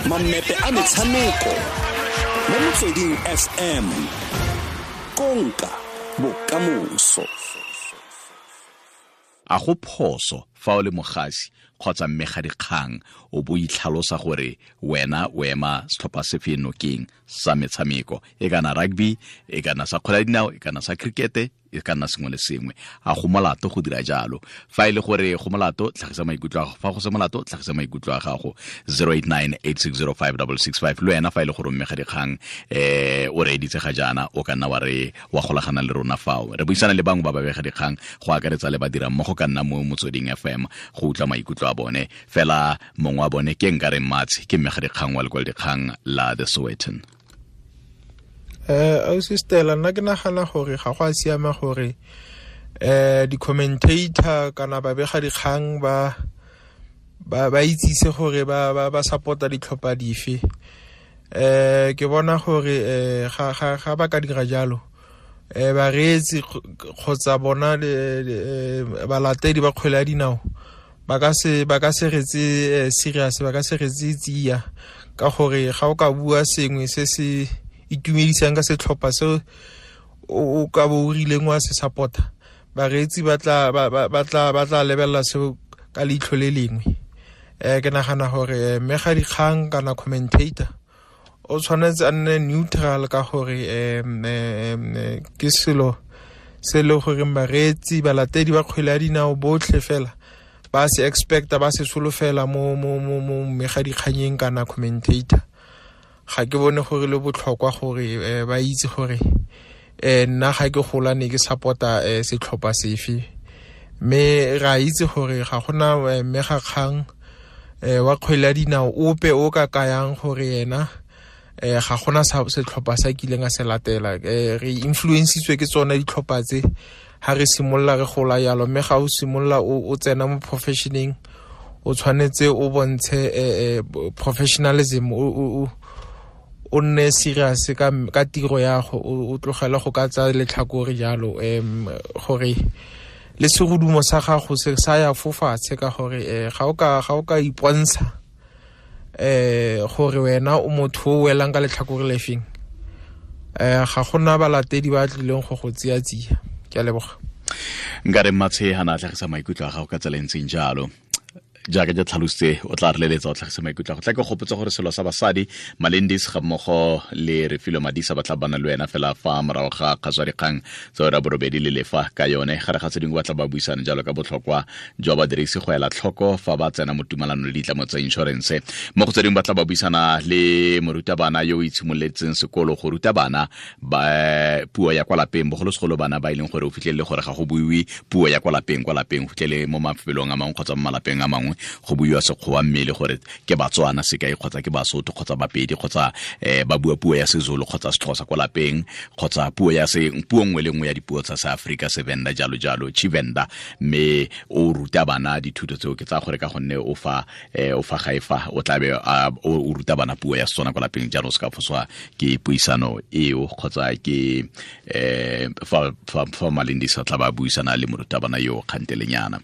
Mammepe a metshameko mo Motsweding FM, konka bokamoso. A go phoso fa o le mogasi kgotsa mmegadikgang o bo itlhalosa gore wena o ema setlhopha sefe nokeng sa metshameko, e kana rugby, e kana sa kgwele ya dinao, e kana sa cricket, e ka nna sengwe le sengwe? A go molato go dira jalo? Fa e le gore go molato, tlhagisa maikutlo a gago. Fa go se molato, tlhagisa maikutlo a gago. 0898605665. Le wena fa e le gore mme ga dikgang o reeditse ga jaana, o ka nna wa re wa golagana le rona fao. Re buisana le bangwe ba babega dikgang, go akaretsa le badira mmogo ka nna mo Motsweding FM, go utlwa maikutlo a bone. Fela mongwe wa bone ke nka reng Matshe, ke mme ga dikgang wa lekwalodikgang la The Sowetan. Ausi Stella, nna ke nagana gore ga go a siama gore di-commentator kana babega dikgang ba itsise gore ba support-a ditlhopha dife. Ke bona gore ga ba ka dira jalo, bareetsi kgotsa bona balatedi ba kgwele ya dinao ba ka se retse serious, ba ka se retse tsia, ka gore ga o ka bua sengwe se se itumedisang ka setlhopha se o ka bo o rileng wa se support-a, bareetsi ba tla lebelela seo ka leitlho le lengwe. Ke nagana gore mmegadikgang kana commentator o tshwanetse a nne neutral, ka gore ke selo se e le goreng bareetsi, balatedi ba kgwele ya dinao botlhe fela ba se expecta, ba se solofela mo mmegadikganyeng kana commentator. Ga ke bone gore le botlhokwa gore ba itse gore nna ga ke gola ne ke support-a setlhopha sefe, mme ra itse gore ga gona mmegakgang wa kgwele ya dinao ope o ka kayang gore yena ga gona setlhopha sa kileng a se latela. Re influencitswe ke tsone ditlhopha tse ha re simolola re gola yalo, mme ga o simolola o tsena mo professioneng, o tshwanetse o bontshe professionalism, o nne serious ka tiro ya go, o tlogele go ka tsa letlhakore jalo, gore le segodumo sa gago se sa ya fofatshe, ka gore ga o ka ipontsha gore wena o motho o welang ka letlhakore lefeng, ga gona balatedi ba tlileng go go tsia tsia. Ke a leboga. Nka re Mmatshe ha na tlhagisa maikutlo a gago ka tsela e ntseng jalo. Jaaka ke tlhalositse, o tla re leletsa o tlhagisa maikutlo a go. Tla ke gopotsa gore selo sa basadi Malendis ga mmogo le Refilwe Madisa ba tla bana le wena fela fa morago ga kgaso ya dikgang tsa ura borobedi le lefa ka yone. Gare ga tse dingwe ba tla ba buisana jalo ka botlhokwa jwa badirisi go ela tlhoko fa ba tsena mo tumalanong le ditlamo tsa inšorense. Mo go tse dingwe ba tla ba buisana le morutabana yo o itshimoletseng sekolo go ruta bana ba puo ya kwa lapeng, bogolosegolo bana ba e leng gore o fitlhelele gore ga go buiwe puo ya kwa lapeng, kwa lapeng o fitlhele mo mafelong a mangwe kgotsa mo malapeng a mangwe go buiwa Sekgowa, mme le gore ke Batswana sekai kgotsa ke Basotho kgotsa Bapedi kgotsa ba bua puo ya Sezulu kgotsa Sexhosa kwa lapeng kgotsa puo ya se puo nngwe le nngwe ya dipuo tsa Seafrika, Sevenda jalo jalo, Tshivenda, mme o ruta bana dithuto tseo. Ke tsa gore ka gonne o fa ga e fa o tlabe o ruta bana puo ya Setswana kwa lapeng, jalo se ka foswa ke puisano eo kgotsa ke fa Malendisa tla ba buisana le morutabana yo kgantelenyana.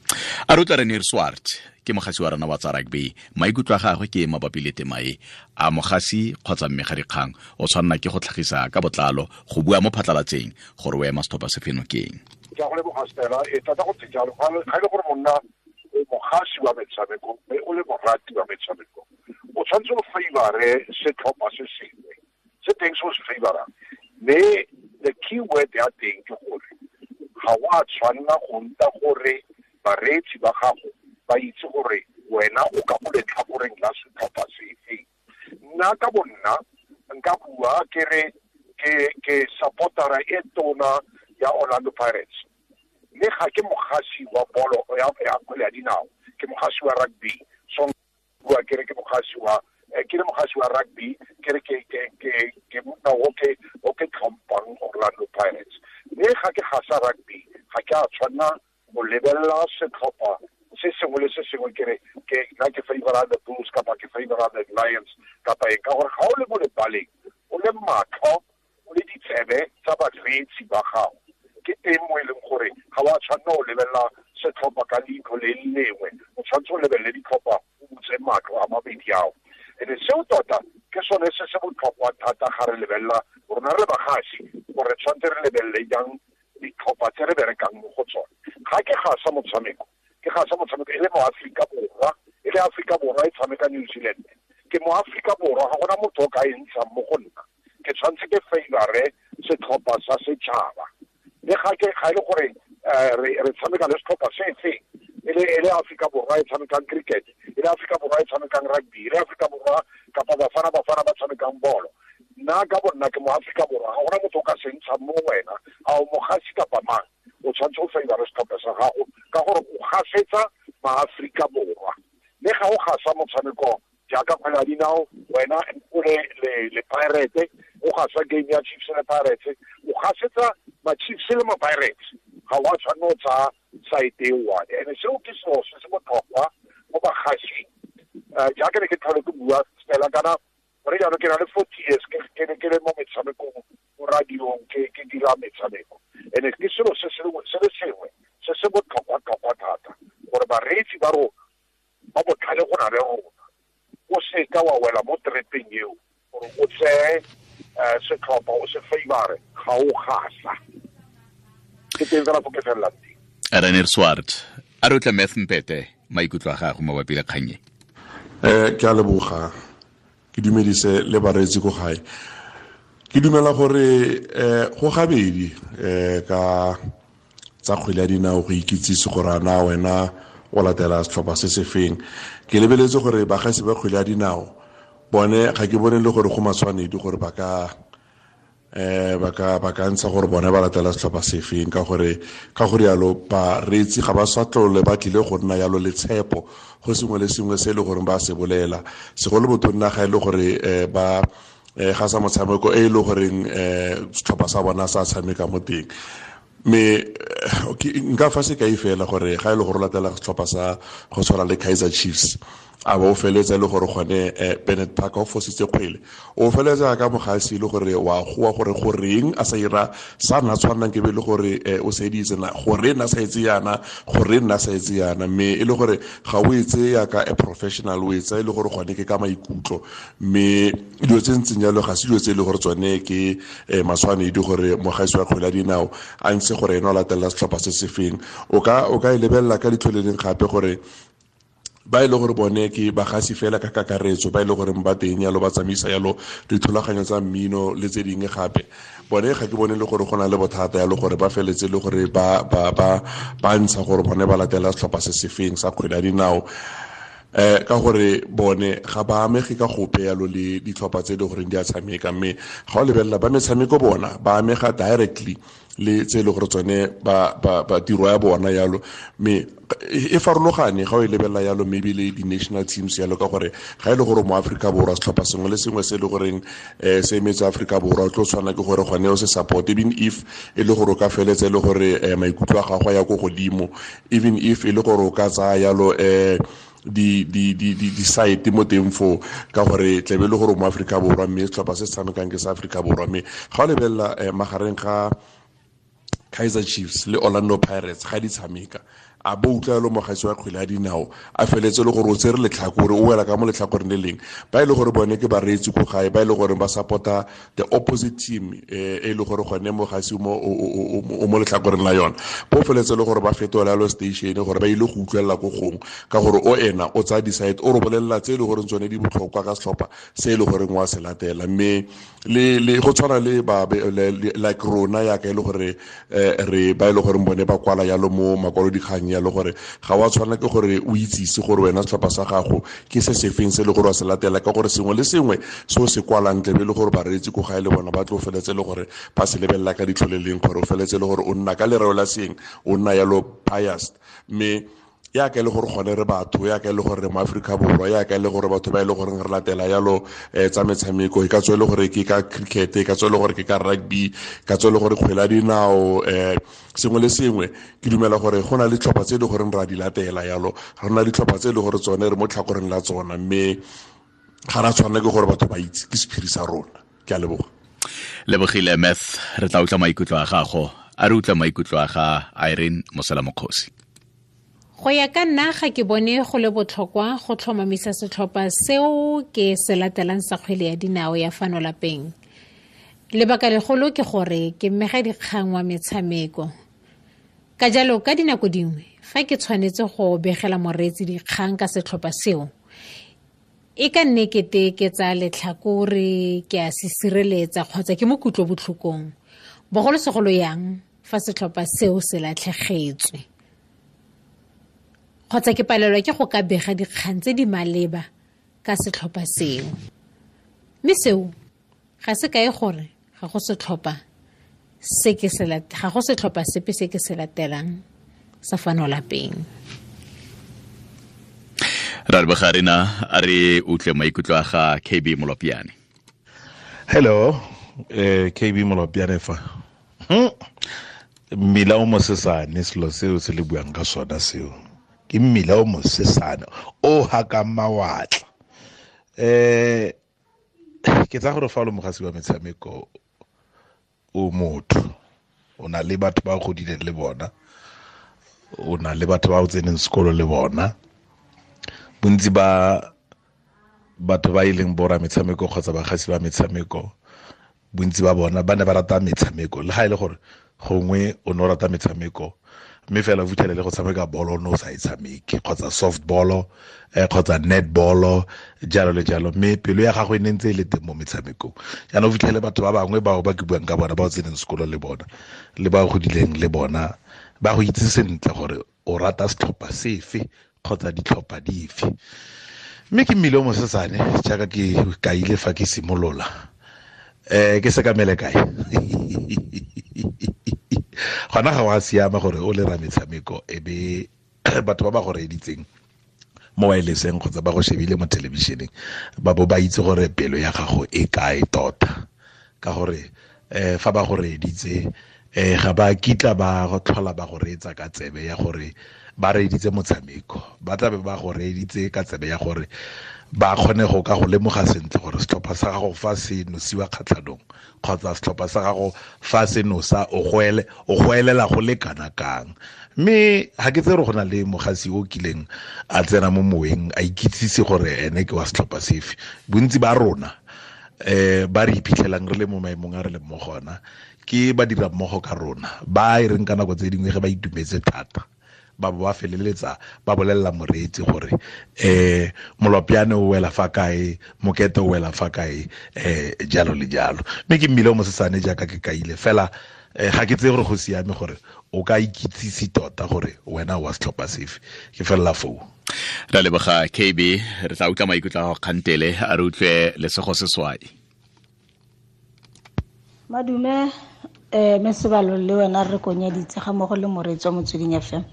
A re utlwa Renier Swart, ke mogasi wa rona wa tsa rugby. Maikutlo a gagwe ke mabapi le tema e. A mogasi kgotsa mmegadikgang o tshwanela ke go tlhagisa ka botlalo go bua mo phatlalatseng gore o ema setlhopha se feno keng? Ke a go leboga Stella. E tota go ntse jalo. Ga e le gore monna o mogasi wa metshameko mme o le morati wa metshameko, o tshwanetse o favore setlhopha se sengwe se teng se o se favorang. Mme the key word ya teng ke gore ga o a tshwanela go nta gore bareetsi ba gago ba itse gore wena o ka mo letlhakoreng la setlhopha sefe. Nna ka bonna nka bua ke re ke supportera e tona ya Orlando Pirates, mme ga ke mogasi wa bolo ya kgwele ya dinao, ke mogasi wa rugby. So bua ke re ke mogasi wa ke le mogasi wa rugby, ke re ke monna o ke tlhompang Orlando Pirates. Mme ga ke gasa rugby, ga ke a tshwanna go lebelela setlhopha se sengwe le se sengwe ke re ke nna ke favora the Bulls kapa ke favora the Lions kapa eng, ka gore ga o le mo lebaleng o le matlho o le ditsebe tsa bareetsi ba gago, ke teng mo e leng gore ga wa tshwanna o lebelela setlhopha ka leitlho le lengwe, o tshwanetse o lebelele ditlhopha o butse matlho a mabedi ao. Ene seo tota ke sone se se botlhokwa thata ga re lebelela rona re le bagasi, gore tshwanetse re lebelele jang ditlhopha tse re berekang mo go tsone. Ga ke gasa motshameko, ke gasa motshameko e le mo Aforika Borwa, e le Aforika Borwa e tshameka New Zealand, ke mo Aforika Borwa, ga gona motho o ka e ntshang mo go nna. Ke tshwanetse ke favore setlhopha sa setšhaba. Le ga ke ga e le gore re tshameka le setlhopha se feng, e le Aforika Borwa e tshamekang cricket, e le Aforika Borwa e tshamekang rugby, e le Aforika Borwa kapa Bafana ba tshamekang bolo, nna ka bonna ke mo Aforika Borwa, ga gona motho o ka se ntshang mo wena, a o mogasi kapa mang, o tshwanetse o favore setlhopha sa gago ka gore o gasetsa maAforika Borwa. Le ga o gasa motshameko jaaka kgwele ya dinao, wena o le Pirates, o gasa game ya Chiefs le Pirates, o gasetsa ma Chiefs le ma Pirates, ga wa tshwanela o tsaya side e one. Ene seo ke selo se se botlhokwa mo bagasing. Jaaka ne ke tlhole ke bua fela kana gore jaanong ke na le 40 years ke ne ke le mo metshamekong, mo radiong, ke dira metshameko. Ene ke selo se le sengwe se se botlhokwa-tlhokwa thata gore bareetsi ba rona ba botlhale go na le rona, o seka wa wela mo trepeng eo gore o tseye setlhopha o se favore, ga o gasa. Ke teng fela fo ke felelang teng. René Swart, a re utlwe Math Mpete maikutlo a gago mabapi le kgang e. Ke a leboga, ke dumedise le bareetsi ko gae. Ke dumela gore go gabedi ka tsa kgwele ya dinao go ikitsise gore a na wena o latela setlhopha se se feng. Ke lebeletse gore bagasi ba kgwele ya dinao bone ga ke bone le gore go matshwanedi gore ba ka ntsha gore bone ba latela setlhopha se feng, ka gore yalo bareetsi ga ba sa tlole ba tlile go nna yalo le tshepo go sengwe le sengwe se e le gore ba se bolela, segolo botonna ga e le gore ba ga sa motshameko e le goreng setlhopha sa bona sa tshameka mo teng. Me nka fa sekai fela gore ga e le gore latela setlhopha sa go tshwana le Kaizer Chiefs, a ba o feletsa e le gore gone Bennett Parker o fositse kgwele, o feletsa ka mogasi e le gore wa goa gore goreng a sa ira sa nna tshwanang ke be le gore o seditse na gore nna sa etse yana, gore nna sa etse yana, mme e le gore ga o etse yaka a professional, o etsa e le gore gone ke ka maikutlo. Mme dilo tse ntseng jalo ga se dilo tse e le gore tsone ke matshwanedi gore mogasi wa kgwele ya dinao a ntshe gore ena o latelela setlhopha se se feng. O ka e lebelela ka leitlho le leng gape gore ba e le gore bone ke bagasi fela ka kakaretso, ba e le gore ba teng yalo ba tsamaisa yalo dithulaganyo tsa mmino le tse dingwe gape, bone ga ke bone le gore go na le bothata yalo gore ba feletse le gore ba ntsha gore bone ba latela setlhopha se se feng sa kgwele ya dinao, ka gore bone ga ba amege ka gope yalo le ditlhopha tse e le goreng di a tshameka. Mme ga o lebelela ba metshameko bona ba amega directly le tse e le gore tsone ba tiro ya bona yalo, mme e farologane ga o e lebelela yalo maybe le di-national teams yalo, ka gore ga e le gore mo Aforika Borwa setlhopha sengwe le sengwe se e le goreng se emetse Aforika Borwa, o tlo tshwana ke gore gone o se support, even if e le gore o ka feletsa e le gore maikutlo a gago a ya ko godimo, even if e le gore o ka tsaya yalo di site mo teng foo, ka gore tlebe le gore mo Aforika Borwa mme setlhopha se se tshamekang ke sa Aforika Borwa. Mme ga o lebelela magareng ga Kaizer Chiefs le Orlando Pirates ga di tshameka, a bo utlwa yalo mogasi wa kgwele ya dinao a feletse le gore o tsere letlhakore, o wela ka mo letlhakoreng le leng, ba e le gore bone ke bareetsi ko gae, ba e le gore ba support-a the opposite team e le gore gone mogasi o mo letlhakoreng la yona, bo feletse le gore ba fetola yalo station gore ba ile go utlwelela ko gongwe, ka gore o ena o tsaya di-side, o re bolelela tse e le goreng tsone di botlhokwa ka setlhopha se e le goreng wa se latela. Mme le go tshwana le ba like rona yaka e le gore re ba e le goreng bone ba kwala yalo mo makwalodikgang yalo, gore ga wa tshwana ke gore o itsise gore wena setlhopha sa gago ke se sefeng se le gore wa se latela, ka gore sengwe le sengwe se o se kwalang tlebe le gore bareetsi ko gae le bona ba tlo feletse le gore ba se lebelela ka ditlho le leng, gore o feletse le gore o nna ka lereo la seng, o nna yalo biased. Mme ya ka e le gore gone re batho, ya ka e le gore re mo Aforika Borwa, ya ka e le gore batho ba e le goreng re latela yalo tsa metshameko, e ka tswa e le gore ke ka cricket, e ka tswa e le gore ke ka rugby, e ka tswa e le gore kgwele ya dinao, sengwe le sengwe. Ke dumela gore go na le ditlhopha tse e le goreng ra di latela yalo, re na le ditlhopha tse e le gore tsone re mo tlhakoreng la tsona, mme ga ra tshwanela ke gore batho ba itse ke sephiri sa rona. Ke a leboga. Lebogile Math, re tla utlwa maikutlo a gago. A re utlwa maikutlo a ga Irene Mosela Mokgosi. Go ya ka nna ga ke bone go le botlhokwa go tlhomamisa setlhopha seo ke se latelang sa kgwele ya dinao ya fano lapeng. Lebaka legolo ke gore ke mmega dikgang wa metshameko. Ka jalo ka dinako dingwe fa ke tshwanetse go begela moreetsi dikgang ka setlhopha seo, e ka nne kete ke tsa letlhakore, ke a se sireletsa kgotsa ke mo kutlobotlhokong, bogolosegolo yang fa setlhopha seo se latlhegetswe, kgotsa ke palelwa ke go ka bega dikgang tse di maleba ka setlhopha seo. Mme seo ga se kae gore ga go setlhopha se ke se ga go setlhopha sepe se ke se latelang sa fano lapeng. Ra leboga rena, a re utlwe maikutlo a ga KB Molopiane. Hello, KB Molopiane fa. Mmila o mosesane, selo seo se le buang ka sona seo. Ke mmila o mosesane o hakang mawatla. Ke tsa gore fa o le mogasi wa metshameko o motho, o na le batho ba o godileng le bona, o na le batho ba o tseneng sekolo le bona. Bontsi ba batho ba e leng bora metshameko kgotsa bagasi ba metshameko, bontsi ba bona ba ne ba rata metshameko, le ga e le gore gongwe o ne o rata metshameko mme fela o fitlhele le go tshameka bolo o ne o sa e tshameke, kgotsa softball, kgotsa netball, jalo le jalo, mme pelo ya gago e ne ntse e le teng mo metshamekong. Jaanong o fitlhele batho ba bangwe bao ba ke buang ka bona, ba o tseneng sekolo le bona le ba o godileng le bona, ba go itse sentle gore o rata setlhopha sefe kgotsa ditlhopha dife. Mme ke mmile o mosesane jaaka ke kaile fa ke simolola, ke sekamele kae? Gona ga wa siama gore o le ra metshameko e be batho ba ba go reeditseng mo wirelesseng kgotsa ba go shebile mo thelebišeneng ba bo ba itse gore pelo ya gago e kae tota, ka gore fa ba go reeditse ga ba kitla ba go tlhola ba go reetsa ka tsebe ya gore ba reeditse motshameko, ba tla be ba go reeditse ka tsebe ya gore ba kgone go ka go lemoga sentle gore setlhopha sa gago fa se nosiwa kgatlhanong kgotsa setlhopha sa gago fa se nosa o goelela go le kana kang. Mme ga ke tsere go na le mogasi o kileng a tsena mo moweng a ikitsise gore ene ke wa setlhopha sefe. Bontsi ba rona ba re iphitlhelang re le mo maemong a re leng mo gona ke ba dira mmogo ka rona, ba e reng ka nako tse dingwe ge ba itumetse thata ba bo ba feleletsa ba bolelela moreetsi gore Molopiane o wela fa kae, Mokete o wela fa kae, jalo le jalo. Mme ke mmile o mosesane jaaka ke kaile fela, ga ke tseye gore go siame gore o ka ikitsise tota gore wena wa setlhopha sefe. Ke felela foo. Ra leboga KB, re tla utlwa maikutlo a gago kgantele, a re utlwe Lesego Seswai. Madume, Mesebalo le wena re konyeditse ga mmogo le moreetsi wa Motsweding FM.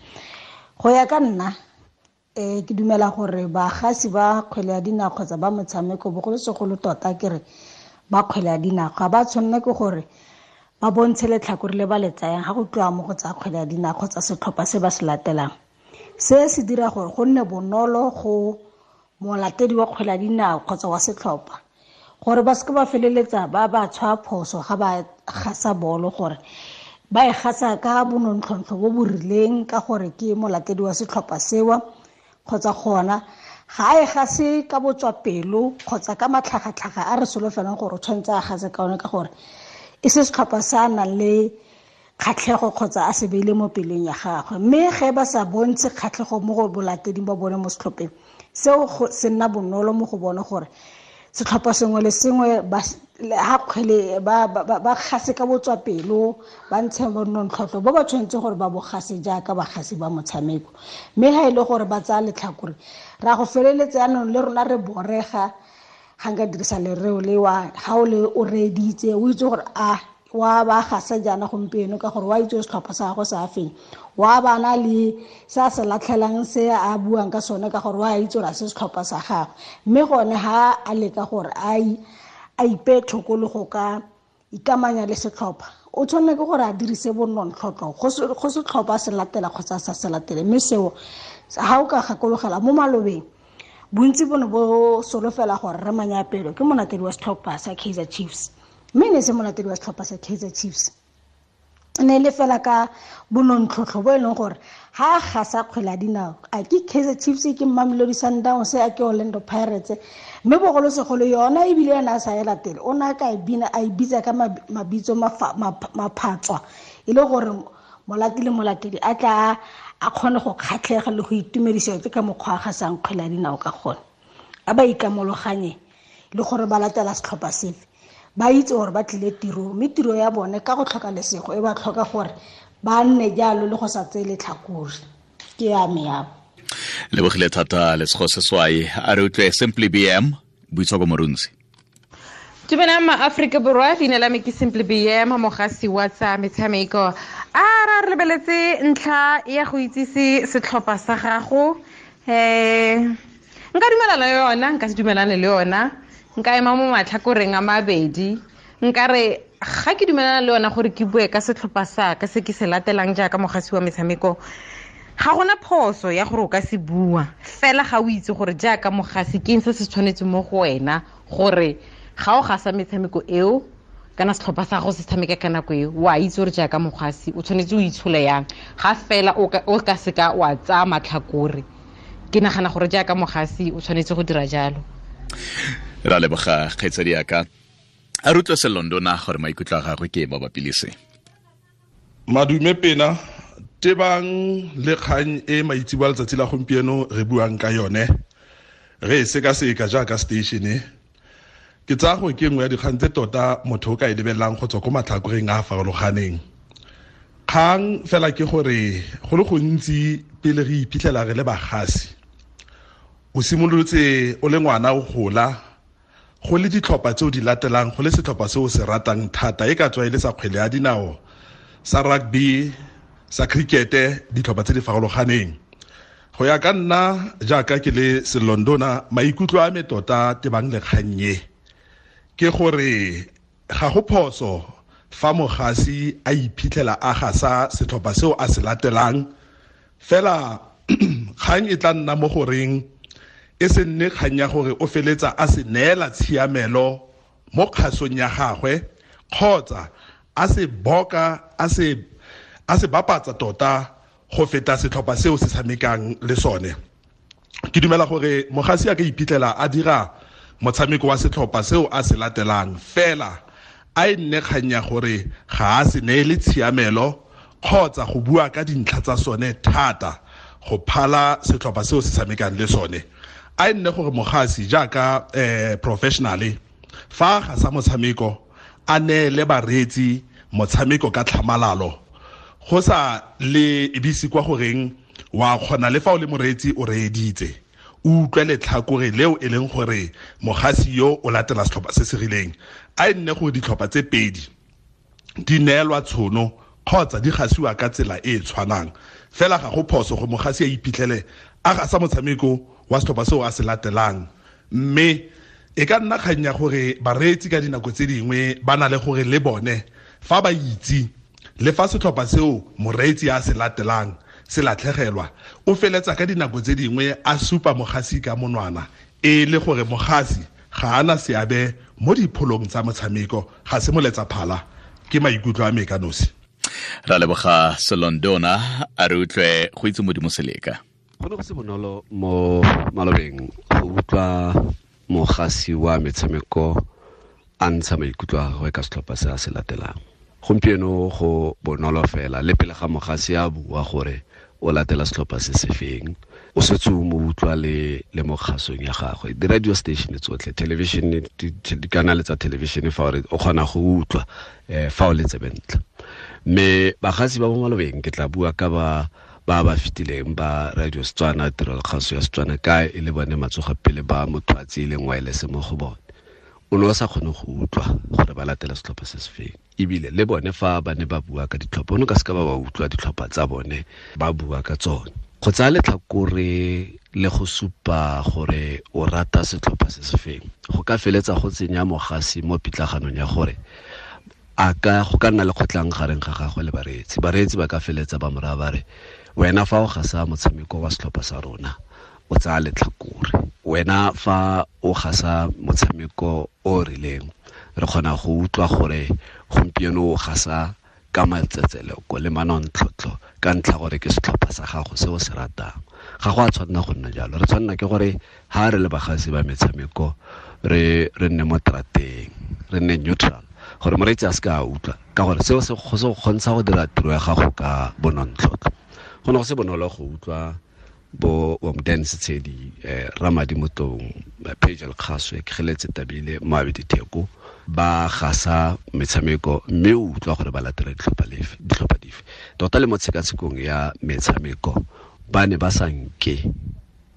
Go ya ka nna, ke dumela gore bagasi ba kgwele ya dinao kgotsa ba motshameko, bogolosegolo tota ke re ba kgwele ya dinao, ga ba tshwanela ke gore ba bontshe letlhakore le ba le tsayang ga go tliwa mo go tsa kgwele ya dinao kgotsa setlhopha se ba se latelang. Se se dira gore go nne bonolo go molatedi wa kgwele ya dinao kgotsa wa setlhopha gore ba seke ba feleletsa ba ba tshwaya phoso ga ba gasa bolo, gore ba e gasa ka bonontlhotlho bo bo rileng ka gore ke molatedi wa setlhopha sewa, kgotsa gona ga a e gase ka botswapelo kgotsa ka matlhagatlhaga a re solofelang gore o tshwanetse a gase ka one, ka gore e se setlhopha se a nang le kgatlhego kgotsa a se beile mo pelong ya gagwe. Mme ge ba sa bontshe kgatlhego mo go bolateding ba bone mo setlhopheng seo, se nna bonolo mo go bone gore setlhopha sengwe le sengwe ba ha kgwele ba gase ka botswapelo, ba ntshe bonontlhotlho bo ba tshwanetse gore ba bo gase jaaka bagasi ba motshameko. Mme ha e le gore ba tsaya letlhakore, ra go feleletsa jaanong le rona re borega, ga nka dirisa lereo le wa ga o le o reeditse o itse gore a wa ba gasa jaana gompieno ka gore wa itse setlhopha sa gagwe sa feng, wa bana le se a se latlhelang se a buang ka sone ka gore wa itse gore a se setlhopha sa gagwe. Mme gone ha a leka gore a ipee thoko le go ka ikamanya le setlhopha, o tshwanela ke gore a dirise bonontlhotlho go setlhopha se latela kgotsa sa se latele. Mme seo ha o ka gakologela mo malobeng, bontsi bo ne bo solofela gore re Manyapelo ke molatedi wa setlhopha sa Kaizer Chiefs, mme ne se molatedi wa setlhopha sa Kaizer Chiefs. Ne le fela ka bonontlhotlho bo e leng gore ha ga sa kgwele ya dinao, a ke Kaizer Chiefs, ke Mamelodi Sundowns, a ke Orlando Pirates, mme bogolosegolo yona ebile ena a sa e latele, o ne a ka e bina a e bitsa ka mabitso maphatswa, e le gore molati le molatedi a tla a kgone go kgatlhega le go itumedisa ke ka mokgwa a gasang kgwele ya dinao ka gone. A ba ikamologanye le gore ba latela setlhopha sefe, ba itse gore ba tlile tiro, mme tiro ya bone ka go tlhoka lesego e ba tlhoka gore ba nne jalo le go sa tseye letlhakore. Ke ya me yabo. Lebogile thata Lesego Seswai. A re utlwe Simply BM, Boitshoko Morunsi. Dumelang ma-Aforika Borwa, leina la me ke Simply BM, mogasi wa tsa metshameko. A ra re lebeletse ntlha ya go itsise setlhopha sa gago. Nka dumelana le yona, nka se dumelane le yona, nka ema mo matlhakoreng a mabedi. Nka re ga ke dumelana le yona gore ke bue ka setlhopha sa ka se ke se latelang jaaka mogasi wa metshameko, ga gona phoso ya gore o ka se bua, fela ga o itse gore jaaka mogasi ke eng se se tshwanetseng mo go wena gore ga o gasa metshameko eo kana setlhopha sa gago se tshameka ka nako eo, wa itse gore jaaka mogasi o tshwanetse o itshole yang, ga fela o ka seka wa tsaya matlhakore. Ke nagana gore jaaka mogasi o tshwanetse go dira jalo. Ra leboga kgaitsadi yaka. A re utlwe Selondona gore maikutlo a gagwe ke mabapi le se. Madume pena, tebang le kgang e maitseboa letsatsi la gompieno re buang ka yone, re e sekaseka jaaka station e. Ke tsaya gore ke nngwe ya dikgang tse tota motho o ka e lebelelang go tswa ko matlhakoreng a a farologaneng. Kgang fela ke gore go le gontsi pele re iphitlhela re le bagasi, o simolotse o le ngwana o gola, go le ditlhopha tse o di latelang, go le setlhopha se o se ratang thata, e ka tswa e le sa kgwele ya dinao, sa rugby, sa cricket, ditlhopha tse di farologaneng. Go ya ka nna jaaka ke le Selondona, maikutlo a me tota tebang le kgang e ke gore ga go phoso fa mogasi a iphitlhela a gasa setlhopha seo a se latelang, fela kgang e tla nna mo goreng e se nne kgang ya gore o feletsa a se neela tshiamelo mo kgasong ya gagwe, kgotsa a se boka, a se bapatsa tota go feta setlhopha seo se tshamekang le sone. Ke dumela gore mogasi a ka iphitlhela a dira motshameko wa setlhopha seo a se latelang, fela a e nne kgang ya gore ga a se neele tshiamelo kgotsa go bua ka dintlha tsa sone thata go phala setlhopha seo se tshamekang le sone. A e nne gore mogasi jaaka professionally fa ga sa motshameko a neele bareetsi motshameko ka tlhamalalo, go sa le ebise kwa goreng wa kgona le fa o le moreetsi o reeditse, o utlwe letlhakore leo e leng gore mogasi yo o latela setlhopha se se rileng. A e nne gore ditlhopha tse pedi di neelwa tshono kgotsa di gasiwa ka tsela e e tshwanang, fela ga go phoso go mogasi a iphitlhele a gasa motshameko wa setlhopha seo a se latelang. Mme e ka nna kgang ya gore bareetsi ka dinako tse dingwe ba na le gore le bone fa ba itse le fa setlhopha seo moreetsi a se latelang se latlhegelwa, o feletsa ka dinako tse dingwe a supa mogasi ka monwana, e le gore mogasi ga ana seabe mo dipholong tsa motshameko, ga se moletsa phala. Ke maikutlo a me ka nosi. Ra leboga Selondona. A re utlwe go itse Modimo Seleka. Go ne go se bonolo mo malobeng go utlwa mogasi wa metshameko a ntsha maikutlo a gagwe ka setlhopha se a se latelang. Gompieno go bonolo fela le pele ga mogasi a bua gore o latela setlhopha se se feng, o setse o mo utlwa le mo kgasong ya gagwe. Di-radio station tsotlhe, television, dikanale tsa television, fa o kgona go utlwa fa o le tsebentle. Mme bagasi ba mo malobeng ke tla bua ka ba ba fetileng ba radio Setswana, tirelo kgaso ya Setswana, ka e le bone matsogo pele ba motho a tseileng wireless mo go bone. O ne o sa kgone go utlwa gore ba latela setlhopha se se feng, ebile le bone fa ba ne ba bua ka ditlhopha, o ne ka seka ba ba utlwa ditlhopha tsa bone ba bua ka tsone. Go tsaya letlhakore le go supa gore o rata setlhopha se se feng go ka feletsa go tsenya mogasi mo pitlaganong ya gore a ka go ka nna le kgotlang gareng ga gagwe le bareetsi. Bareetsi ba ka feletsa ba mo raya ba re, wena fa o gasa motshameko wa setlhopha sa rona o tsaya letlhakore, wena fa o gasa motshameko o rileng re kgona go utlwa gore gompieno o gasa ka matsetseleko le manontlhotlho ka ntlha gore ke setlhopha sa gago se o se ratang. Ga go a tshwanna go nna jalo. Re tshwanna ke gore ha re le bagasi ba metshameko re nne mo trateng, re nne neutral, gore moreetsi a se ka a utlwa, ka gore seo se go kgontsha go dira tiro ya gago ka bonontlhotlho. Go ne go se bonolo go utlwa bo Womden Setshedi, Ramadi Motong, Pagel Kgaswe, Kgeletse Tabile, Moabi Ditheko ba gasa metshameko, mme o utlwa gore ba latela ditlhopha dife. Tota le mo tshekatshekong ya metshameko ba ne ba sa nke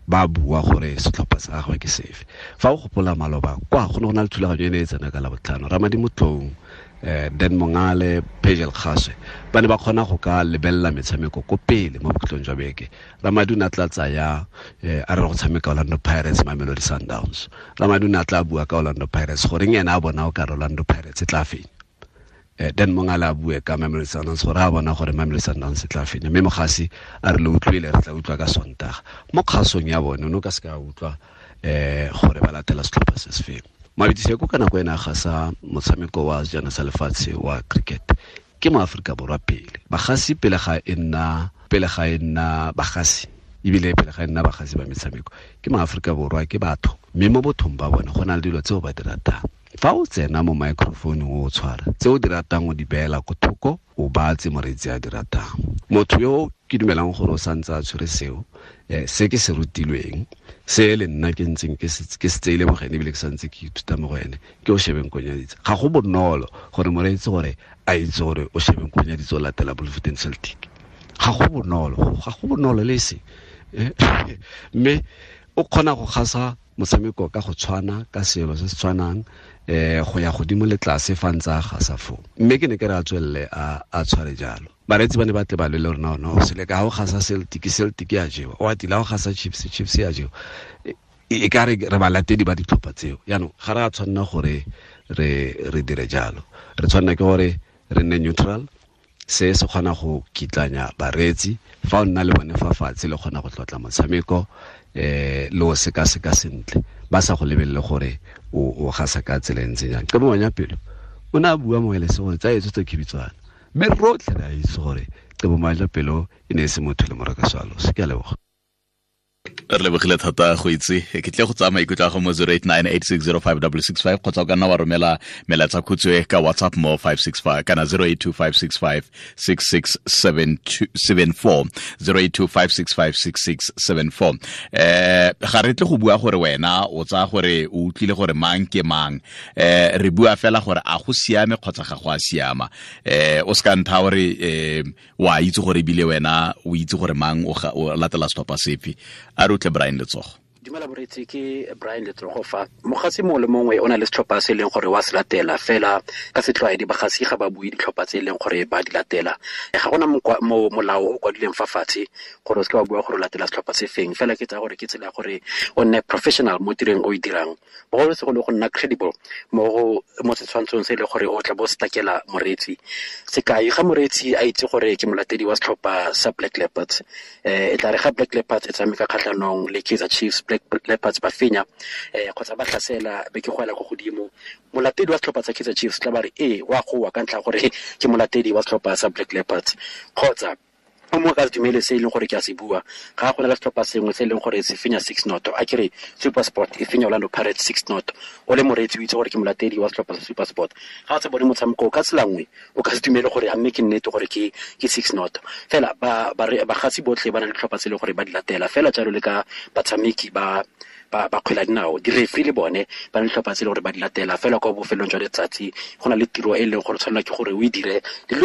ba bua gore setlhopha sa gagwe ke sefe. Fa o gopola maloba kwa go ne go na le thulaganyo e ne e tsena ka Labotlhano, Ramadi Motong, Dan Mongale, Pagel Kgaswe ba ne ba kgona go ka lebelela metshameko ko pele mo bokhutlong jwa beke. Ramadi o ne a tla tsaya a re go tshameka Orlando Pirates, Mamelodi Sundowns. Ramadi o ne a tla bua ka Orlando Pirates, goreng ena a bona o ka Orlando Pirates e tla fenya. Dan Mongale a bue ka Mamelodi Sundowns gore a bona gore Mamelodi Sundowns e tla fenya, mme mogasi a re le utlwile, re tla utlwa ka Sontaga. Mo kgasong ya bone o ne o ka se ka utlwa gore ba latela setlhopha se se feng. Mabidiseko ka nako ena gasa motshameko wa sejana sa lefatshe wa cricket ke mo Aforika Borwa pele. Bagasi pele ga e nna bagasi, ebile pele ga e nna bagasi ba metshameko ke mo Aforika Borwa, ke batho, mme mo bothong ba bone go na le dilo tseo ba di ratang. Fa o tsena mo microphone o tshwara tse o di ratang o di beela ko thoko, o batse moreetsi a di ratang. Motho yo ke dumelang gore o santse a tshwere seo, se ke se rutilweng, se le nna ke ntseng ke se tseile mo go ene, ebile ke santse ke ithuta mo go ene, ke o shebeng Konyaditse. Ga go bonolo gore moreetsi gore a itse gore o shebeng Konyaditse o latela Bloemfontein Celtic. Ga go bonolo le se. Mme o kgona go gasa motshameko ka go tshwana, ka selo se se tshwanang, go ya godimo le tlase fa ntse a gasa foo. Mme ke ne ke re a tswelele a tshware jalo. Bareetsi ba ne ba tle ba lwele rona, no se le ka go gasa Celtic, Celtic ya jewa, o atila go gasa Chiefs, Chiefs ya jewa. E ka re re balatedi ba ditlhopha tseo. Jaanong ga re a tshwanna gore re dire jalo. Re tshwanna ke gore re nne neutral. Se se kgona go kitlanya bareetsi, fa o nna le bone fa fatshe le kgona go tlotla motshameko, le o sekaseka sentle, ba sa go lebelele gore o gasa ka tsela e ntseng jang. Qebo Manyapelo o ne a bua mo elese gore tsa etso tse khibitswana, mme rotlhe re a itse gore Qebo Manyapelo e ne e se motho le moraka swalo. Se ke a leboga. Re lebogile thata go itse. Ke tle go tsaya maikutlo a go mo 0898605665, kgotsa o ka nna wa romela melaetsa khutshwe ka WhatsApp mo 565 kana 0825656674, 0825656674. Ga re tle go bua gore wena o tsaya gore o utlwile gore mang ke mang, re bua fela gore a go siame kgotsa ga go a siama. O se ka ntha gore wa itse gore ebile wena o itse gore mang o latela setlhopha sefe. A re utlwe Brian Letsogo. Dumela boretsi, ke Brian Letsogo fa. Mogasi mongwe le mongwe o na le setlhopha se e leng gore wa se latela, fela ka setlwaedi bagasi ga ba bue ditlhopha tse e leng gore ba di latela. Ga gona molao o kwadileng fa fatshe gore o seke wa bua gore o latela setlhopha se feng, fela ke tsaya gore ke tsela ya gore o nne professional mo tirong o e dirang, bogolosegolo go nna credible mo setshwantshong se e leng gore o tla bo se takela moreetsi. Sekai, ga moreetsi a itse gore ke molatedi wa setlhopha sa Black Leopards, e tla re ga Black Leopards e tshameka kgatlhanong le Kaizer Chiefs, Black Leopards ba fenya, kgotsa ba tlhasela be ke goela ko godimo, molatedi wa setlhopha sa Kaizer Chiefs tla ba re ee wa goa ka ntlha gore ke molatedi wa setlhopha sa Black Leopards. Kgotsa o mongwe ka se dumele se e leng gore ke a se bua, ga go na le setlhopha sengwe se e leng gore se fenya 6-0, a ke re SuperSport e fenya Orlando Pirates 6-0, o le moreetsi o itse gore ke molatedi wa setlhopha sa SuperSport, ga o sa bone motshameko ka tsela nngwe o ka se dumele gore a mme ke nnete gore ke 6-0. Fela bagasi botlhe ba na le ditlhopha tse e leng gore ba di latela, fela jalo le ka batshameki ba kgwele ya dinao, di-referee le bone ba na le ditlhopha tse e leng gore ba di latela. Fela kwa bofelong jwa letsatsi go na le tiro e leng gore tshwanela ke gore o e dire, le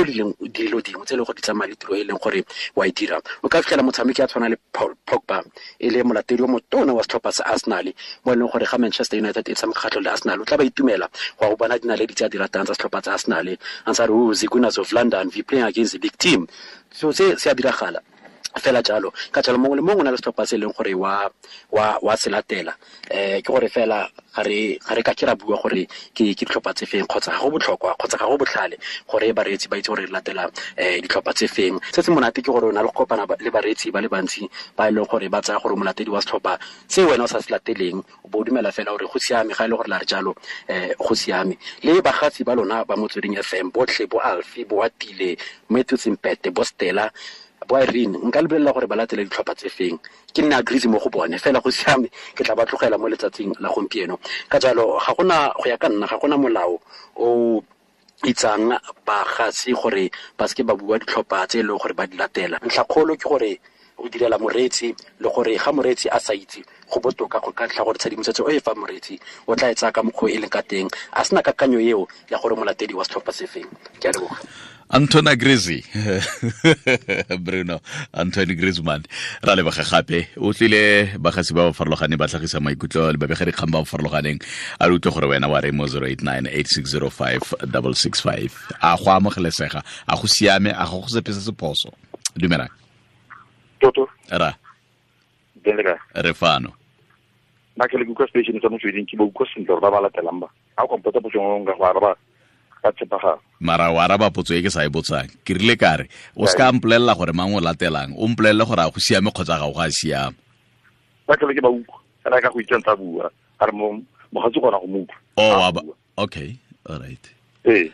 dilo dingwe tse e leng gore di tsamaya le tiro e leng gore wa e dira. O ka fitlhela motshameki a tshwana le Paul Pogba e le molatedi o motona wa setlhopha sa Arsenal, mo e leng gore ga Manchester United e tshameka kgatlhanong le Arsenal, o tla ba itumela go go bona dinaledi tse a di ratang tsa setlhopha tsa Arsenal, a ntse a re, oh, the Gunners of London, we playing against the big team. So se se a diragala. Fela jalo ka jalo mongwe le mongwe o na le setlhopha se e leng gore wa se latela. Ke gore fela ga re ka ke ra bua gore ke ditlhopha tse feng, kgotsa ga go botlhokwa kgotsa ga go botlhale gore bareetsi ba itse gore re latela ditlhopha tse feng. Se se monate ke gore o na le go kopana le bareetsi ba le bantsi ba e leng gore ba tsaya gore molatedi wa setlhopha se wena o sa se lateleng, o bo o dumela fela gore go siame, ga e le gore la re jalo go siame. Le bagatsi ba lona ba Motsweding FM botlhe, bo Alfi, bo Atile, Matthew Sempete, bo Stella, bo Irene, nka lebelela gore ba latele ditlhopha tse feng. Ke nne agrees mo go bone fela, go siame, ke tla ba tlogela mo letsatsing la gompieno. Ka jalo ga gona, go ya ka nna, ga gona molao o itsang bagatsi gore ba seke ba bua ditlhopha tse e leng gore ba di latela. Ntlhakgolo ke gore o direla moreetsi, le gore ga moreetsi a sa itse, go botoka go ka ntlha gore tshedimosetso e fa moreetsi o tla e tsaya ka mokgwa e leng ka teng, a sena kakanyo eo ya gore molatedi wa setlhopha se feng. Ke a leboga. Antoine Griezmann, Bruno Antoine Griezmann, ra leboga gape. O tlile bagatsi ba ba farologaneng ba tlhagisa maikutlo le babegadikgang ba ba farologaneng. A re utlwe gore wena wa re mo 089 8605 665. A go amogelesega, a go siame, a go sepe se se phoso. Dumelang. Toto. Ra. Denlega. Re fano. Nna ke le kutlwa station sa Motsweding, ke ba utlwa sentle gore ba ba latelang ba. Ha o kompotsa potso nngwe nka go araba ka tshepagalo. Mara o araba potso e ke sa e botsang. Ke rile ka re, o se ka mpolelela gore mang o latelang, o mpolelele gore a go siame kgotsa ga o ga siama. Ba ke le ke ba utlwa, fela ka go itse ntse a bua, a re mogatsi gona go mo utlwa. Oh, okay, all right. Ee.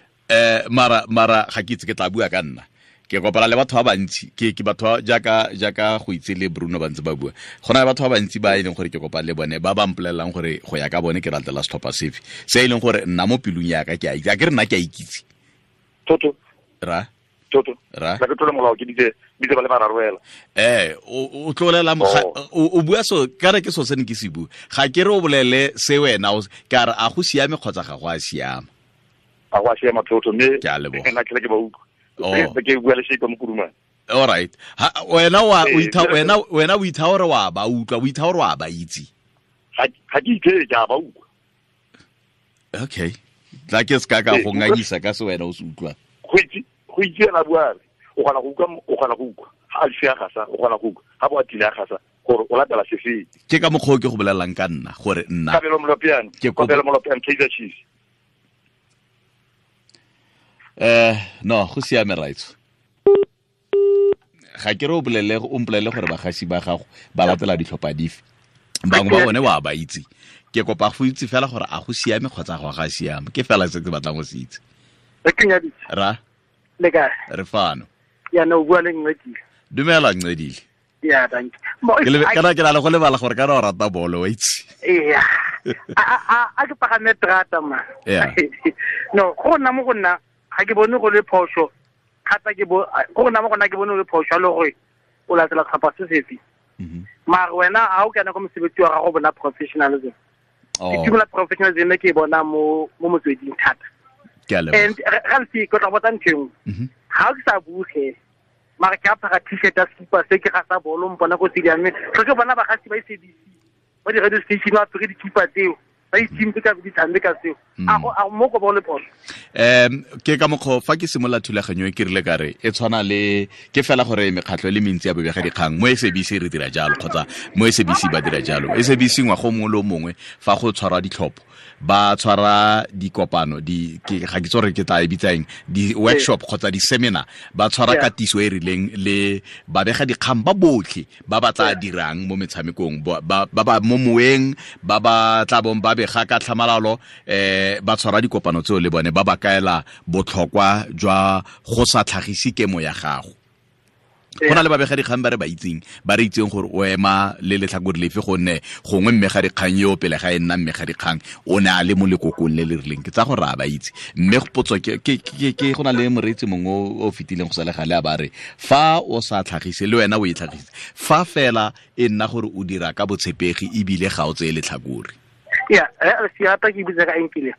Mara ga ke itse ke tla bua ka nna. Ke kopana le batho ba bantsi, ke batho jaaka go itse le Bruno ba ntse ba bua. Go na le batho ba bantsi ba e leng gore ke kopana le bone ba ba mpolelelang gore go ya ka bone ke ratela setlhopha sefe. Se e leng gore nna mo pelong ya ka ke a itse, a ke re nna ke a ikitse. Toto. Ra. Toto. Ra. Ka ke tlola molao ke ditse ba le bararo fela. O tlolela o bua so ka re ke so se ne ke se bua. Ga ke re o bolele se wena ka re a go siame kgotsa ga go a siama. A go a siama Toto, mme ke a leboga. Nna ke le ke ba utlwa. Oh. Ke bua le Sheikh Mokurumane. All right. Wena wa wena o itha hore wa ba utlwa, o itha hore wa ba itse. Ga ke itse ke a ba utlwa. Okay. Tla ke ska ka go nganyisa ka se wena o se utlwa. Go itse ena bua, o gana go utlwa, o gana go utlwa. Ha a sia gasa, o gana go utlwa. Ha bo a tile a gasa gore o latela sefe. Ke ka mokgwa ke go bolellang ka nna gore nna. Kabelo Molopiane, Kabelo Molopiane Kaizer Chiefs. No, go siame right. Ga ke re o bolele, o mpolele gore bagasi ba gago ba latela ditlhopha dife. Bangwe ba bone wa ba itse. Ke kopa go itse fela gore a go siame kgotsa go ga siame. Ke fela se ke batlang go se itse. Re kenyaditse. Ra. Le kae? Re fano. Ya no bua le Ncedile. Dumela Ncedile. Ya, thank you. Kana ke na le go lebala gore kana o rata bolo, wa itse. Yeah. A ke pagame terata ma. Yeah. No, go nna mo go nna ga ke bone go le phoso, thata ke bo go nna mo gona ke bone go le phoso le gore o latela setlhopha se sefe. Mara wena ha o kana go mosebetsi wa gago bona professionalism. Ke tumela professionalism ke bona mo Motsweding thata. Ke a leboga. And ga ntse ke tla botsa ntho engwe. Ga ke sa buge mara ke apara t-shirt ya sekipa se ke ga sa bolo mpona ko stadium, tle ke bona bagasi ba SABC ba di radio station ba apere dikipa tseo. Ba itse ka di tshameka tseo. A mo go bone phoso. Ke ka mokgwa fa ke simolola thulaganyo e ke rile ka re e tshwana le ke fela gore mekgatlho e le mentsi ya bobegadikgang mo SABC re dira jalo kgotsa mo SABC ba dira jalo. SABC ngwaga o mongwe le o mongwe fa go tshwarwa ditlhopho ba tshwara dikopano di ke ga ke tsore ke tla e bitsang di workshop kgotsa di seminar, ba tshwara katiso e rileng le babegadikgang ba botlhe ba ba tla dirang mo metshamekong, ba ba mo moeng, ba ba tla bong ba bega ka tlhamalalo, ba tshwara dikopano tseo le bone ba ba kaela botlhokwa jwa go sa tlhagise kemo ya gago. Go na le babegadikgang ba re ba itseng, ba re itseng gore o ema le letlhakore lefe, gonne gongwe mmegadikgang yo pele ga e nna mmegadikgang o ne a le mo lekokong le le rileng. Ke tsa gore a ba itse. Mme potso ke go na le moreetsi mongwe o fetileng go sa le gale a ba re fa o sa tlhagise le wena o e tlhagise, fa fela e nna gore o dira ka botshepegi ebile ga o tseye letlhakore. Yeah, se rata ke bitsa ka enkile.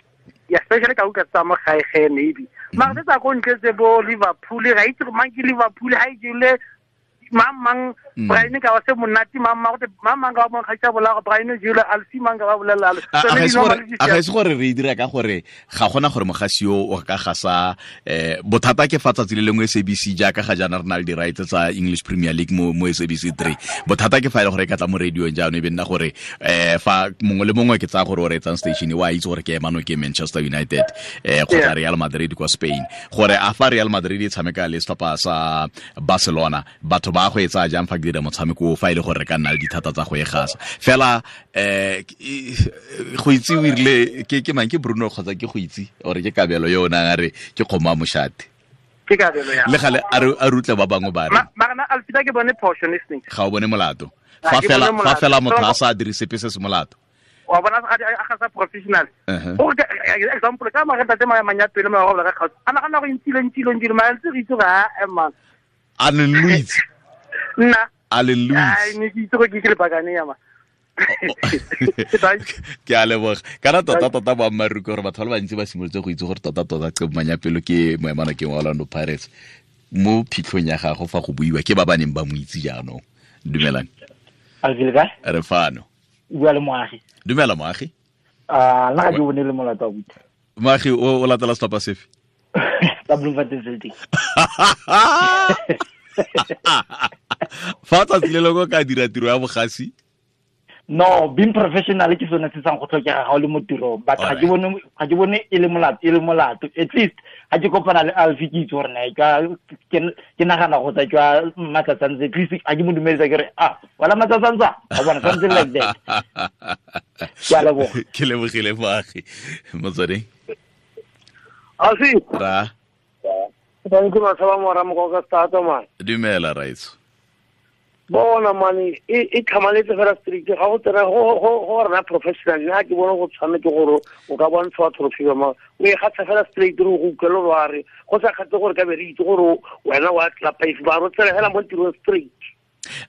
Ya especially ka utlwa tsa mo gae ge maybe. Mara tsa go ntle tse bo Liverpool, ga itse mang ke Liverpool ha e jele Mang mang Brian ka wa se monate mang mang gote mang mang ka wa mo kgaitsa bola go Brian jule alfi mang ka ba bolela alo. A ga ise gore re dira ka gore ga gona gore mogasi yo o ka gasa bothata ke fa tsatsi le lengwe SABC jaaka ga jaana re na le di rights tsa English Premier League mo SABC 3. Bothata ke fa ile gore ka tla mo radio jaanong e be nna gore fa mongwe le mongwe ke tsaya gore o reetsang station wa itse gore ke emano ke Manchester United kgotsa Real Madrid kwa Spain. Gore a fa Real Madrid e tshameka le setlhopha sa Barcelona batho ba go etsa jang fa ke dira motshameko fa ile gore re ka nna le dithata tsa go e gasa fela go itse o irile ke mang ke Bruno kgotsa ke go itse ore ke Kabelo yo o nang a re ke kgomo a moshate ke Kabelo ya le gale a rutle ba bangwe ba re mara alfita ke bone portion listening ga o bone molato fa fela motho a sa dire sepe se se molato wa bona a ga sa professional go example ka mara tate manyapele mo go ka kgaotsa ana gana go intile mara ntse re itse ga man a le Luis nna a le Luis ai ne ke itse go ke le bakane ya ma ke a leboga kana tota boammaaruri gore batho ba le bantsi ba simolotse go itse gore tota Qebo Manyapelo ke moemana ke wa Orlando Pirates mo phitlhong ya gago fa go buiwa ke ba ba neng ba mo itse jaanong. Dumelang re fano bua le Moagi. Dumela Moagi. Nna ga ke bone le molato wa buti. Moagi o latela setlhopha sefe? Sa Bloemfontein Celtic. Fa tsatsi le lengwe ka dira tiro ya bogasi? No, being professional ke sone se sang go tlhokega ga o le mo tirong, but ga ke bone e le molato. At least ga ke kopana le Alfie ke itse gore na ke nagana go tsa jwa Matsatsantsa, at least ga ke mo dumedisa ke re ah wala Matsatsantsa, wa bona, something like that. Ke a leboga. Ke lebogile Moagi. Motsweding. Alfie. Ra. Thank you Masaba mora mokoka stata man. Dumela raitso. Bona mane e tlhamaletse fela strict ga go tsena go rena professional nna ke bona go tshwanetse gore o ka bontsha trophy ma o e gatsa fela straight re go utlwela wa re go sa kgatse gore ka be re itse gore wena wa tlapa if ba ro tsela fela mo tirong straight.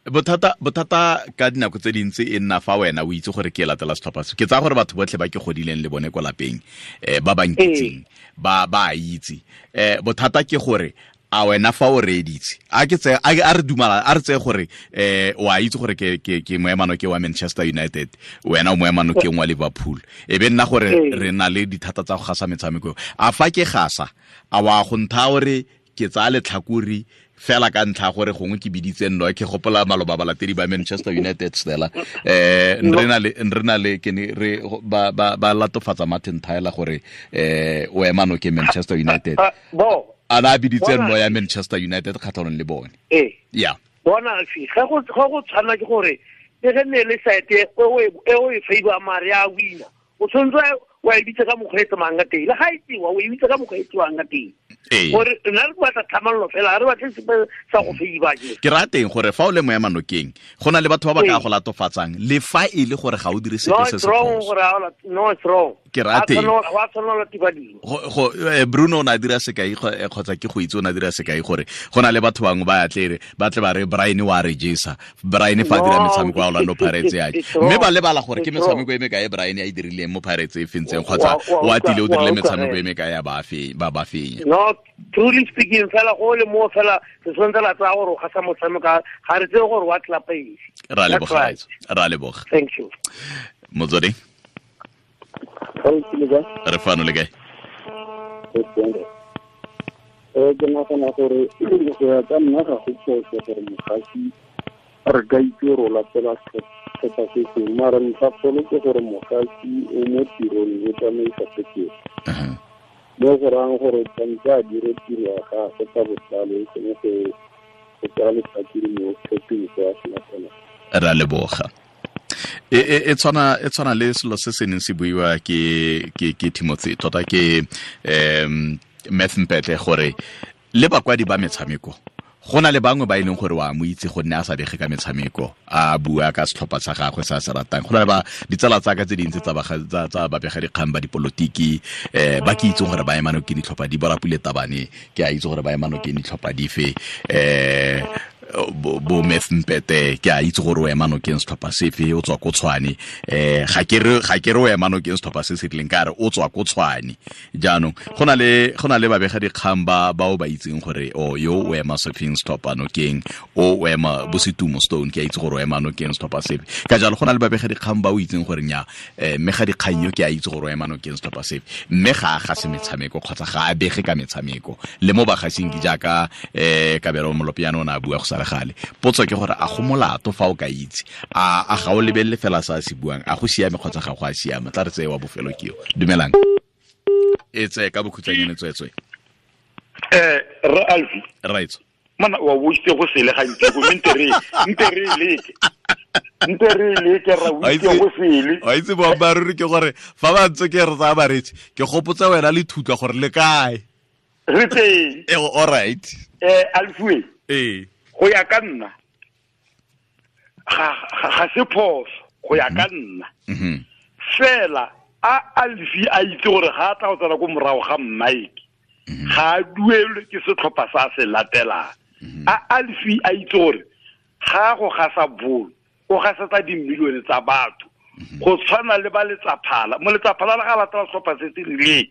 Bothata ka dinako tse dintsi e nna fa wena o itse gore ke latela setlhopha se. Ke tsaya gore batho botlhe ba ke godileng le bone kwa lapeng ba ba nkitseng ba a itse. Bothata ke gore a wena fa o reeditse a ke tse a re dumala a re tse gore wa itse gore ke moemano ke wa Manchester United, wena o moemano ke wa Liverpool, e be nna gore re na le dithata tsa go gasa metshameko. A fa ke gasa a wa go ntha gore ke tsaya letlhakori fela ka ntlha gore gongwe ke biditse nno ke gopola maloba balatedi ba Manchester United stela re na le ke ne re ba latofatsa Martin Tyler gore o emano ke Manchester United bo ana biditse nno ya Manchester United kgatlhanong le bone. Yeah bona fi ga go tshwana ke gore e ge ne le site e o e favor mare ya wina o tshwanetse wa e bitsa ka mokgwa e tsamang ka teng le ga e tsewa o e bitsa ka mokgwa e tsewang ka teng gore nna re batla tlhamallo fela re batle sepe sa go feiba ke raya teng gore fa o le moemanokeng go na le batho ba ba ka go latofatsang le fa e le gore ga o dire sepe se se no it's wrong ke raya teng wa tshwanela go Bruno o ne a dira sekai kgotsa ke go itse o ne a dira sekai gore go na le batho bangwe ba tle ba tle ba re Brian wa re jesa Brian fa dira metshameko ya Orlando Pirates ya mme ba lebala gore ke metshameko e mekae Brian a e dirileng mo Pirates e fentseng kgotsa wa tile o dirile metshameko e mekae ya ba ba fenya. No, truly speaking fela go le mo fela se tshwanetse la tsaya gore o gasa motshameko ga re tseye gore wa tlapa eng. Ra leboga ra leboga. Thank you. Motsweding. Re fano le kae? Ke nagana gore go ya ka nna ga go phoso gore mogasi re ka itse gore o latela setlhopha se sengwe, mara ntlhakgolo ke gore mogasi o mo tirong o tsamaisa sekete mo go rayang gore tshwanetse a dire tiro ya gagwe ka botlalo e seng go tsaya letlhakore mo setlhopheng se a se latelang. Ra leboga. E tshwana le selo se se neng se buiwa ke Timothy tota ke Math Mpetle gore le bakwadi ba metshameko go na le bangwe ba e leng gore wa mo itse gonne a sa bege ka metshameko a bua ka setlhopha sa gagwe sa se ratang. Go na le ba ditsala tsa ka tse dintsi tsa babega dikgang ba dipolotiki ba ke itseng gore ba emano ke ditlhopha di borapule tabane ke a itse gore ba emano ke ditlhopha dife Bo Methmpete ke a itse gore o ema nokeng setlhopha sefe, o tswa ko Tshwane. Ga ke re o ema nokeng setlhopha se se rileng, ka re o tswa ko Tshwane. Jaanong go na le babega dikgang ba o ba itseng gore o yo o ema sefeng setlhopha nokeng, o ema bo Setumo Stone, ke a itse gore o ema nokeng setlhopha sefe. Ka jalo go na le babega dikgang ba o itseng gore nya mme ga dikgang yo ke a itse gore o ema nokeng setlhopha sefe, mme ga a gase metshameko kgotsa ga a bege ka metshameko. Le mo bagasing ke jaaka Kabelo Molopiano o ne a bua go sa le gale. Potso ke gore a go molato fa o ka itse, a ga o lebelele fela sa se buang, a go siame kgotsa ga go a siama? Tla re tseye wa bofelo ke yo. Dumelang. E tseye ka bokhutshwanyane tswetswe. Re Alfi. Right. Mana wa boitse go sele gantsi go nte re leke. Nte re leke ra boitse go sele. Wa itse boammaaruri ke gore fa ba ntse ke re tsaya baretsi, ke gopotsa wena le thutla gore le kae. Re teng. All right. Alfi. Go ya ka nna ga se phoso go ya ka nna. Fela a Alfi a itse gore ga a tla go tsena ko morago ga Mike, ga a duelwe ke setlhopha sa se latelang. A Alfi a itse gore ga go gasa bolo, o gasetsa dimilione tsa batho, go tshwana le ba letsaphala. Mo letsaphala le ga latela setlhopha se se rileng,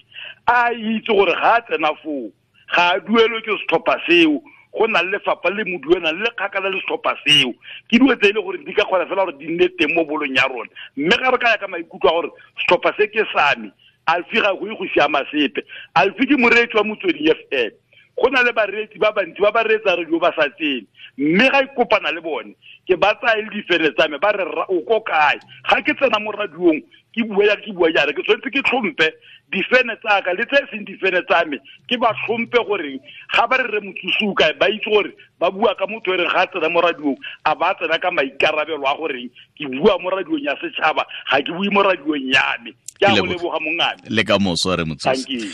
a itse gore ga a tsena foo ga a duelwe ke setlhopha seo, go na le lefapha le mo duelang le kgakala le setlhopha seo. Ke dilo tse e le gore di ka kgona fela gore di nne teng mo bolong ya rona. Mme ga re ka ya ka maikutlo a gore setlhopha se ke sa me, Alfi ga go ye go siama sepe. Alfi ke moreetsi wa Motsweding FM. Go na le bareetsi ba bantsi ba ba reetsa radio ba sa tsene, mme ga ikopana le bone ke ba tsaya le difene tsa me, ba re o ko kae. Ga ke tsena mo radiong ke bua jaana, ke tshwanetse ke tlhompe difene tsa ka le tse e seng difene tsa me, ke ba tlhompe gore ga ba re re motsosi o kae, ba itse gore ba bua ka motho e reng ga a tsena mo radiong a ba tsena ka maikarabelo a goreng ke bua mo radiong ya setšhaba, ga ke bue mo radiong ya me. Ke a go leboga mongame. Le ka moso re motsosi.